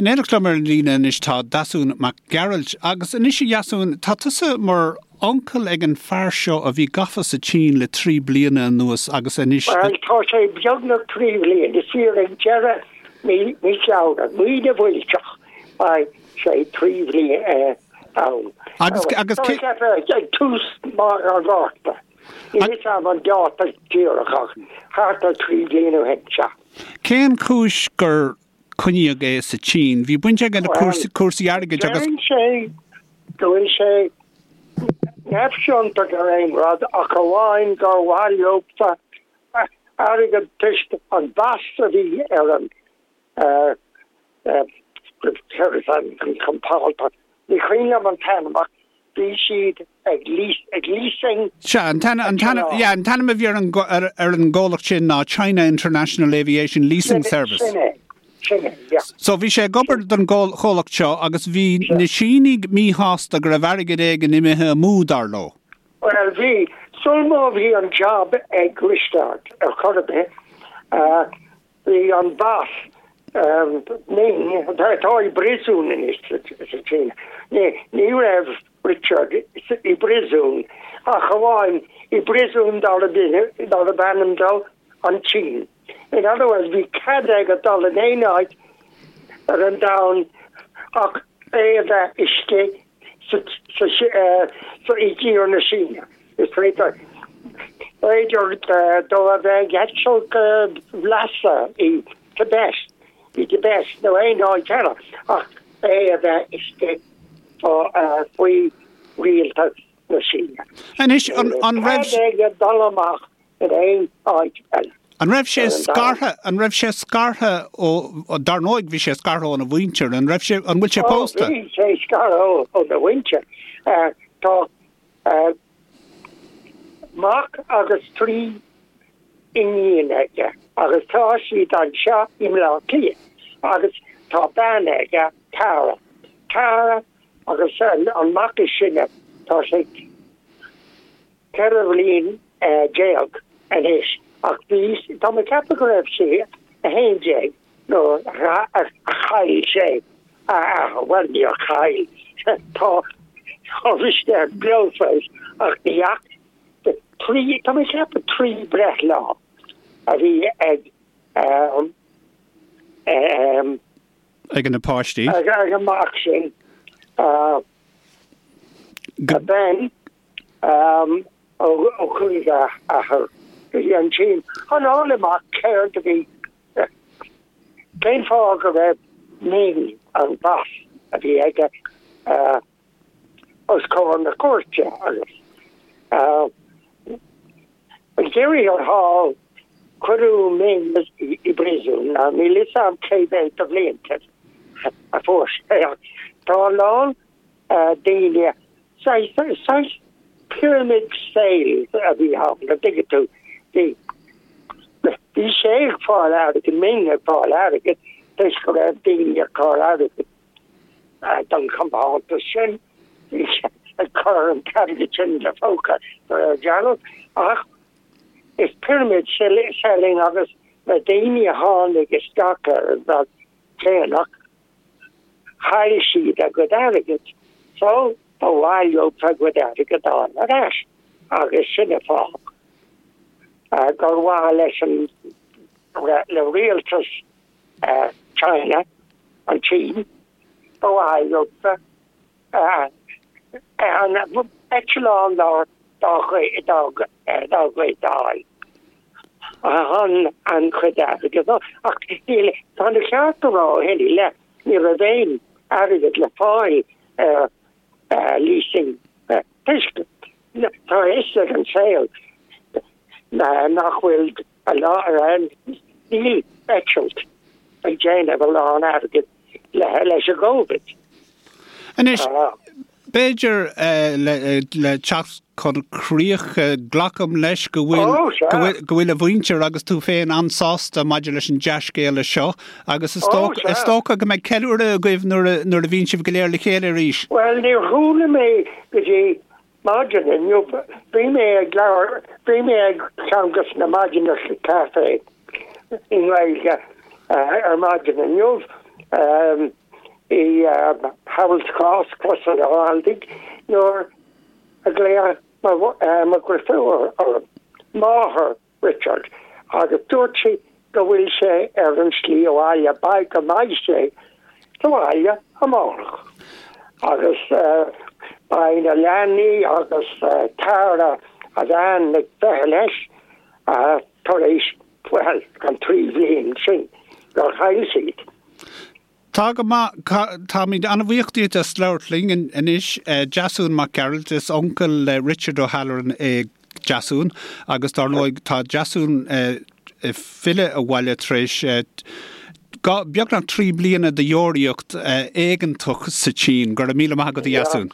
In éineacht liom ar an líne anois tá Deasún Mac Gearailt. Agus anois a Dheasúin, tá tusa mar uncail ag an fear seo a bhí gafa sa tSín le 3 bliana anuas agus anois. Bhuel, tá sé beagnach 3 bhliain, is fíor, ag deireadh mí Feabhra, mí na bhfuilteach, beidh sé 3 bhliain ann. Agus, agus cé. Ag tús an Mhárta. Níl fhios a'm an dáta díreach ach thart ar 3 bhliain ó shin, sea. Cén chúis gur coinníodh é sa tSín? Bhí baint aige le cúrsaí airgid agus. Deireann sé go bhfuil sé neamhchiontach ar aon rud ach amháin gur mhaith leofa airgead toisc an mheas a bhí ar an an compántas. Ní cuimhin liom an t-ainm ach bhí siad ag ag leasing. Sea, an t-ainm, an t-ainm, yeah, an t-ainm a bhí ar an, ar, ar an gcomhlacht sin ná China International Aviation Leasing Service. Sin é, sin é, yeah. So bhí sé ag obair don gcomhlacht seo agus bhí na Sínigh míshásta go raibh airgead éigin imithe amú, dar leo. Bhuel, bhí. Sul má bhí an jab ag Risteard ar chor ar bith, Bhí an boss, Ming, atá i bpríosún anois sa tSín. Ní raibh Richard i bpríosún ach amháin i bpríosún darb ainm dó an tSín. In other words, bhí cead aige dul in aon áit ar an domhan ach é a bheith istigh sa i dtír na Síne. Is féidir, b'fhéidir dó a bheith ag eitilt go Lhasa i Tibet, i dTibet nó aon áit eile ach é a bheith istigh faoi rialtas na Síne. Anois, an raibh. Cead aige dul amach in aon áit eile. An raibh sé scartha, an raibh sé scartha ó, dar ndóigh bhí sé scartha óna mhuintir, an raibh sé, an bhfuil sé pósta? Ó, bhí sé scartha óna mhuintir. Tá mac agus 3 iníon aige agus tá siad anseo i mBleá Cliath agus tá bean aige, Tara. Tara agus an mac is sine, tá sé 14 bhliain anois ach bhí, tá mé ag ceapadh go raibh sé 11 nuair a chaill sé a athair, bhuel níor chaill, tá Risteard beo fós ach ní fhaca, trí, tá mé ag ceapadh 3 breithlá a bhí ag ag na páistí. Ag an mac sin, Ben. Ó chuaigh a athair go dtí an tSín chun fháil amach céard a bhí, cén fáth go raibh Ming, an boss a bhí aige, os comhair na cúirte agus ag deireadh thiar thall cuireadh Ming i bpríosún. Now níl fhios a'm cé mhéad de bhlianta a fuair sé ach tá a lán daoine Saghas pyramid sales a bhí ann, an dtuigeann tú. Bhí, bhí sé ag fáil airgid, Ming ag fáil airgid, toisc go raibh daoine ag cur airgid don chompántas sin, bhí sé ag cur an t-airgead sin ina phóca de réir dealraimh. Ach is pyramid selling agus na daoine a tháinig isteach ar an rud déanach, Chaill siad a gcuid airgid, so ba mhaith leo a gcuid airgid a fháil ar ais agus sin an fáth gur mhaith leis an le rialtas China, an tSín, ba mhaith leo an eitleán dá gcuid a fháil chun an chuid airgid ach níl tá an ceart a rá ó shin i leith ní raibh aon airgead le fáil ar leasing toisc tá a fhios ag an saol nach bhfuil a lán níl eitilt ag déanamh a lán airgid leis an gCovid. Anois, b'fhéidir le teacht chun críche, glacaim leis go bhfuil go bhfuil a mhuintir agus tú féin an-sásta maidir leis an dea-scéala seo agus is dócha go mbeidh ceiliúradh agaibh nuair a bhíonn sibh go léir le chéile arís. Bhuel, níor chuala mé go dtí maidin inniu, bhí mé ag labhairt, bhí mé ag ceann de na maidineacha caife i nGaeilge ar maidin inniu. I Harold's Cross, Crois an Ghaldaigh, nuair a ghlaoigh mo dheirfiúr orm, máthair Richard, agus dúirt sí go bhfuil sé ar an slí abhaile, beidh go mbeidh sé sa bhaile amárach. Agus beidh na leanaí agus Tara, a bhean, ag feitheamh leis tar éis, bhuel, an 3 bhliain sin gur chaill siad. Tá go maith. Táimid an-bhuíoch díot as labhairt linn anois. Deasún Mac Gearailt, is uncail le Richard O'Halloran é Deasún agus dár ndóigh tá Deasún ag filleadh abhaile tar éis beagnach 3 bliana de dheoraíocht éigeantach sa tSín. Go raibh míle maith agat a Dheasúin.